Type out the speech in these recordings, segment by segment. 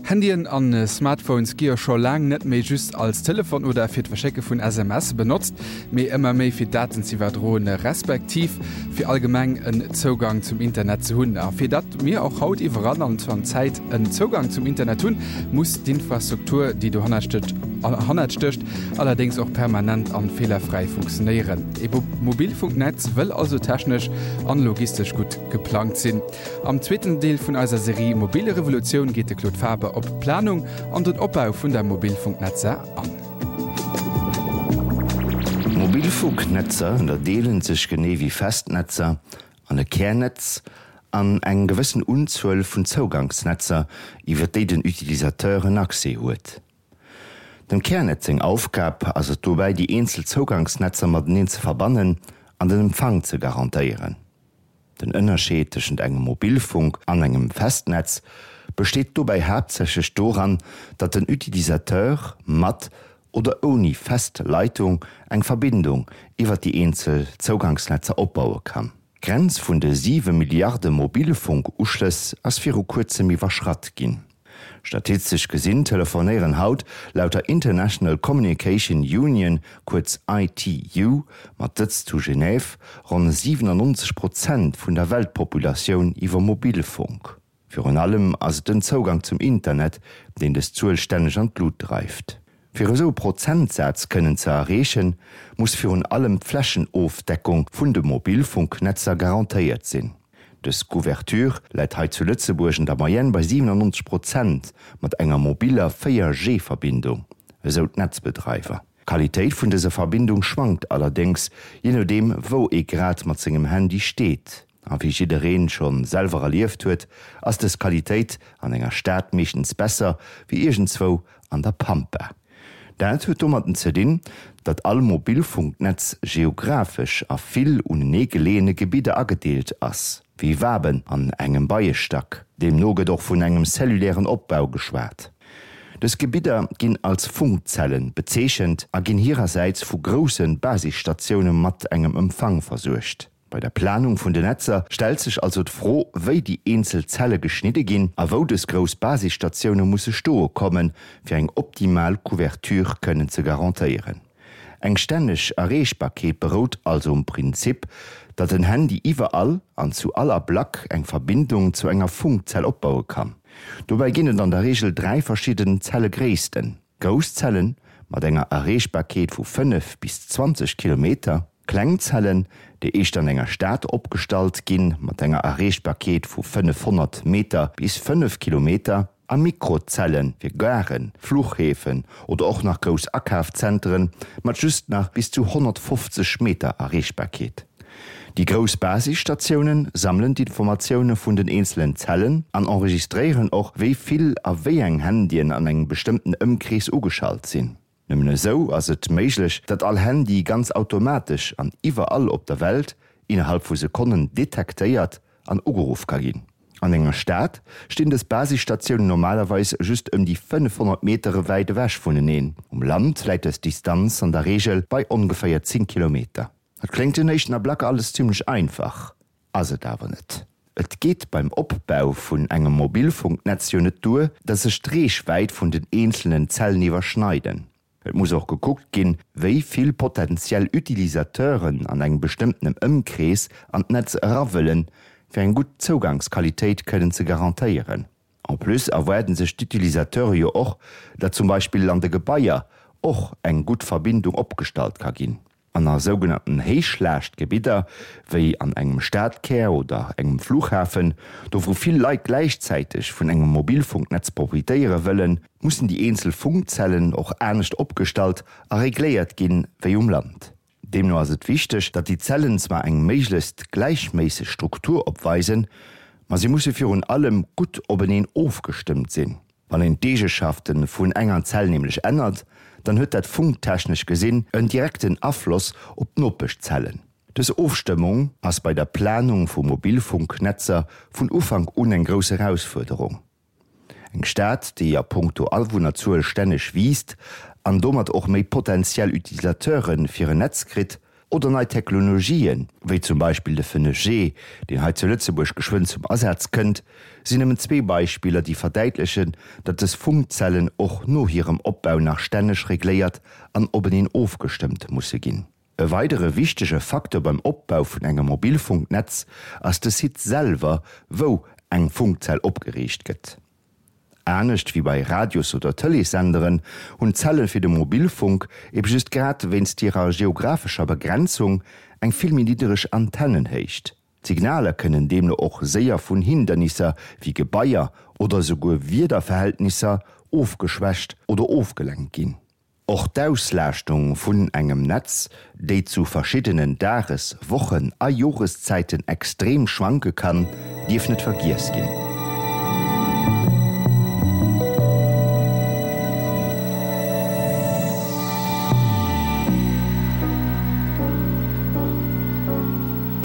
Handyen an Smartphones gi jo scho laang net méi just als Telefon oder fir d'Verschécke vun SMS benotzt, mee ëmmer méi fir Daten z'iwwerdroen, respektiv fir allgemeng en Zougang zum Internet ze hunn. A fir datt mir och haut iwwerall an zu all Zäit en Zougang zum Internet hunn, muss d'Infrastruktur, déi dohannert stécht, allerdéngs och permanent an feelerfräi funktionéieren. E Mobilfunknetz wëll also technesch an logistesch gutt geplangt sinn. Am zweeten Deel vun eiser Serie Mobile Revolutioun geet de Claude Faber op d'Planung an den Opbau vun der Mobilfunknetzer an. Mobilfunknetzer ënnerdeelen sech genee wéi Festnetzer an e Kärnetz an eng gewëssen Unzuel vun Zougangsnetzer, iwwer déi den Utilisateur en Accès huet. Dem Kärnetz seng Aufgab ass et dobäi déi eenzel Zougangsnetzer mateneen ze verbannen an den Empfang ze garantéieren. Den Ënnerscheed tëschent engem Mobilfunk an engem Festnetz besteet dobäi haaptsächlech doran, datt den Utilisateur mat oder ouni fest Leitung eng Verbindung iwwer déi eenzel Zougangsnetzer opbaue kann. D'Grenz vun de 7 Milliarde Mobilfunk-Uschlëss ass viru kuerzem iwwerschratt ginn. Statistesch gesinn telefonéieren haut laut der International Communication Union, kuerz ITU, mat Sëtz zu Genève, ronn 97 Prozent vun der Weltpopulatioun iwwer Mobilfunk. Virun allem ass et den Zougang zum Internet, deen dës Zuel stänneg an d'Lut dreift. Fir esou e Prozentsaz kënnen ze erreechen, muss virun allem d'Flächenofdeckung vun de Mobilfunknetzer garantéiert sinn. Dës Couverture läit hei zu Lëtzebuerg an der Moyenne bei 97 Prozent mat enger mobiller 4G Verbindung, esou d'Netzbedreiwer. D'Qualitéit vun dëser Verbindung schwankt allerdéngs, jee nodeem wou ee grad mat sengem Handy steet. A wéi jiddereen schonn selwer erlieft huet, ass dës Qualitéit an enger Stad meeschtens besser wéi iergendzwou an der Pampa. Dat huet domatten ze dinn, datt all Mobilfunknetz geographesch a vill unenee geleeëne Gebidder agedeelt ass, wéi Waben an engem Beiestack. Deemno gëtt och vun engem cellulären Opbau geschwat. Dës Gebidder ginn als Funkzellen bezeechent a ginn hirersäits vu grousse Basisstatioune mat engem Empfang versuergt. Bei der Planung vun den Netzer stellt sech also d'Fro, wéi déi eenzel Zelle geschnidde ginn a wou dës grouss Basisstatioune musse stoe kommen, fir eng optimal Couverture kënnen ze garantéieren. Eng stänneg Erreechbarkeet berout also um Prinzip, datt en Handy iwwerall an zu all Ablack eng Verbindung zu enger Funkzell opbaue kann. Dobäi ginn et an der Reegel 3 verschidden Zellegréissten. Grouss Zellen mat enger Erreechbarkeet vu 5 bis 20 Kilometer, kleng Zellen, déi éischter an enger Stad opgestallt ginn, mat enger Erreechbarkeet vu 500 Meter bis 5 Kilometer, a Mikrozelle fir Garen, Fluchhäfen oder och nach grouss Akafzentren mat just nach bis zu 150 Meter Erreechbarkeet. Déi grouss Basisstatioune sammelen d'Informatioune vun den eenzelen Zellen an enregistréieren och, wéi vill a wéi eng Handyen an engem bestëmmten Ëmkrees ugeschalt sinn. Nëmmen esou ass et méiglech, datt all Handy ganz automatesch an iwwerall op der Welt innerhalb vu Sekonnen detektéiert an ugeruff ka ginn. An enger Stad stinn dës Basisstatiounen normalerweis just ëm déi 500 Metere wäit ewech vuneneen. Um Land läit dës Distanz an der Reegel bei ongeféier 10 Kilometer. Dat kléngt den éischten Ablack alles zimmlech einfach, ass et awer net. Et geet beim Opbau vun engem Mobilfunknetz jo net duer, dass sech d'Reechwäit vun den eenzelnen Zellen iwwerschneiden. Et muss och gekuckt ginn, wéi vill potentiell Utilisateuren an engem bestëmmtenem Ëmkrees an d'Netz era wëllen, fir eng gutt Zougangsqualitéit kënnen ze garantéieren. En plus erwaarden sech d'Utilisateure jo och, datt zum Beispill an de Gebaier och eng gutt Verbindung opgestallt ka ginn. An a sougenannten Héichlaaschtgebidder, wéi an engem Stadkär oder engem Flughafen, do wou vill Leit gläichzäiteg vun engem Mobilfunknetz profitéiere wëllen, mussen déi eenzel Funkzellen och anescht opgestallt a regléiert ginn, wéi um Land. Deemno ass et wichteg, datt déi Zellen zwar eng méiglechst gläichméisseg Struktur opweisen, ma si musse virun allem gutt openeen ofgestëmmt sinn. Wann een d'Eegeschafte vun enger Zell nämlech ännert, dann huet dat funktechnesch gesinn en direkten Afloss op d'Nopeschzellen. Dës Ofstëmmung ass bei der Planung vu Mobilfunknetzer vun Ufank un eng grouss Erausfuerderung. Eng Stad, déi a punkto Awunnerzuel stänneg wiisst an domat och méi potentiell Utilisateure fir en Netz kritt, Oder nei Technologien, wéi zum Beispill de 5G, deen hei zu Lëtzebuerg geschwënn zum Asaz kënnt, sinn nëmmen zwee Beispiller, déi verdäitlechen, datt dës Funkzellen och no hirem Opbau nach stänneg regléiert an openeen ofgestëmmt musse ginn. E weidere wichtege Facteur beim Opbau vun engem Mobilfunknetz ass de Site selwer, wou eng Funkzell opgeriicht gëtt. Anescht wéi bei Radios oder Tëleessenderen hunn d'Zelle fir de Mobilfunk ebe just grad wéinst hirer geographescher Begrenzung eng vill méi niddereg Antennenhéicht. D'Signaler kënnen deemno och séier vun Hindernisser wéi Gebaier oder esouguer Wiederverhältnisser ofgeschwächt oder ofgelenkt ginn. Och d'Auslaaschtung vun engem Netz, déi zu verschiddenen Dages-, Wochen a Joreszäiten extrem schwanke kann, dierf net vergiess ginn.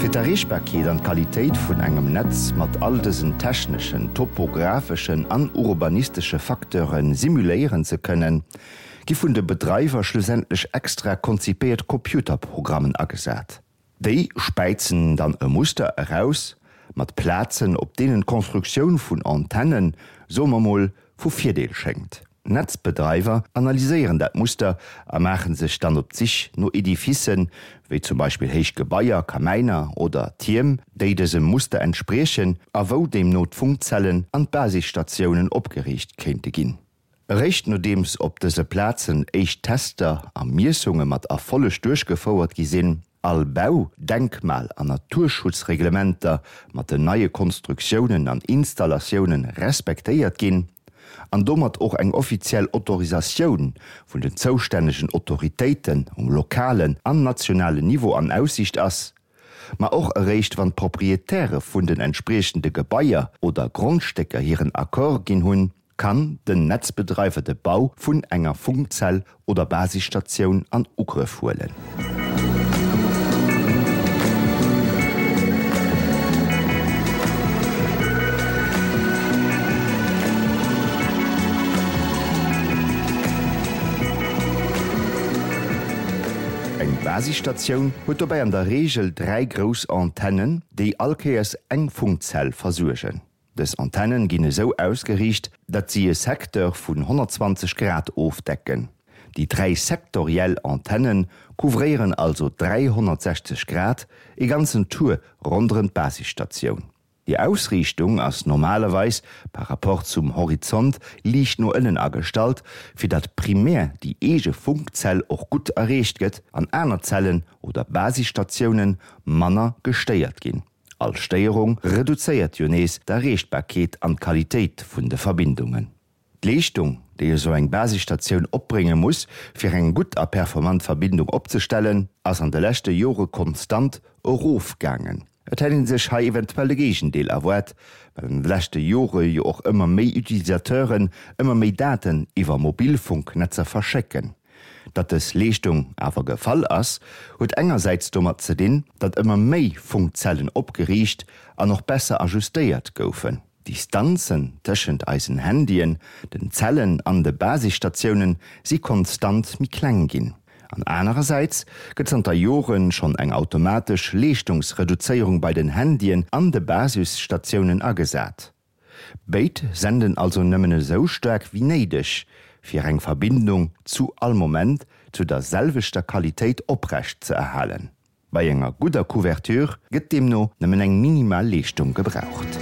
Fir d'Erreechbarkeet an d'Qualitéit vun engem Netz mat all dësen techneschen, topographeschen an urbanistesche Facteure simuléieren ze kënnen, gi vun de Bedreiwer schlussendlech extra konzipéiert Computerprogrammen agesat. Déi späizen dann e Muster eraus mat Plazen, op deenen d'Constructioun vun Antennen, soe mer mol, vu Virdeel schéngt. D'Netzbedreiwer analyséieren dat Muster a maache sech dann op d'Sich no Edificen, wéi zum Beispill héich Gebaier, Kamäiner oder Tierm, déi dësem Muster entspriechen a wou deemno d'Funkzellen an d'Basisstatiounen opgeriicht kéinte ginn. Eréischt nodeems op dëse Plazen éischt Tester a Miessunge mat Erfolleg duerchgefouert gi sinn, all Bau-, Denkmal an Naturschutzreglementer mat den neie Konstruktiounen an Installatioune respektéiert ginn an domat och eng offiziell Autorisatioun vun den zoustännegen Autoritéiten um lokalen an nationalen Niveau an Aussiicht ass, ma och eréischt wann d'Proprietäre vun den entspriechende Gebaier oder Grondstécker hiren Accord ginn hunn, kann den Netzbedreiwer de Bau vun enger Funkzell oder Basisstatioun an Ugrëff huelen. Eng Basisstatioun huet dobäi an der Reegel 3 grouss Antennen, déi allkéiers eng Funkzell versuergen. Dës Antennen ginn esou ausgeriicht, datt si e Secteur vun 120 Grad ofdecken. Déi 3 sektoriell Antenne couvréieren also 360 Grad, e ganzen Tour ronderëm d'Basisstatioun. Déi Ausriichtung ass normalerweis par rapport zum Horizont liicht no ënnen agestallt, fir datt primär déi eege Funkzell och gutt erreecht gëtt an aner Zellen oder Basisstatioune manner gestéiert ginn. All Stéierung reduzéiert jo nees d'Erreechbarkeet an d'Qualitéit vun de Verbindungen. D'Leeschtung, déi esou eng Basisstatioun opbrénge muss, fir eng gutt a performant Verbindung opzestellen, ass an de leschte Jore konstant erofgaangen. Et hätt ee sech hei eventuell de Géigendeel erwaart, well an de leschte Jore jo och ëmmer méi Utilisateuren ëmmer méi Daten iwwer Mobilfunknetzer verschécken. Datt dës Leeschtung awer gefall ass, huet engersäits domat ze dinn, datt ëmmer méi Funkzellen opgeriicht an och besser ajustéiert goufen. D'Distanzen tëschent eisen Handyen, den Zellen an de Basisstatiounen si konstant méi kleng ginn. An anerersäits gëtt zanter Jore schonn eng automatesch Leeschtungsreduzéierung bei den Handyen an de Basisstatiounen agesat. Béid senden also nëmmen esou staark wéi néideg, fir eng Verbindung zu all Moment zu der selwechter Qualitéit oprecht ze erhalen. Bei enger gudder Couverture gëtt deemno nëmmen eng minimal Leeschtung gebraucht.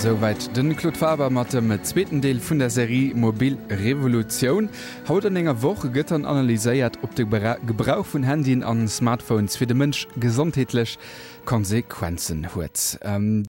Souwäit de Claude Faber mat dem zweeten Deel vun der Serie Mobil Revolutioun. Haut an enger Woch gëtt dann analyséiert, ob de Gebrauch vun Handyen an Smartphones fir de Mënsch gesondheetlech Konsequenzen huet.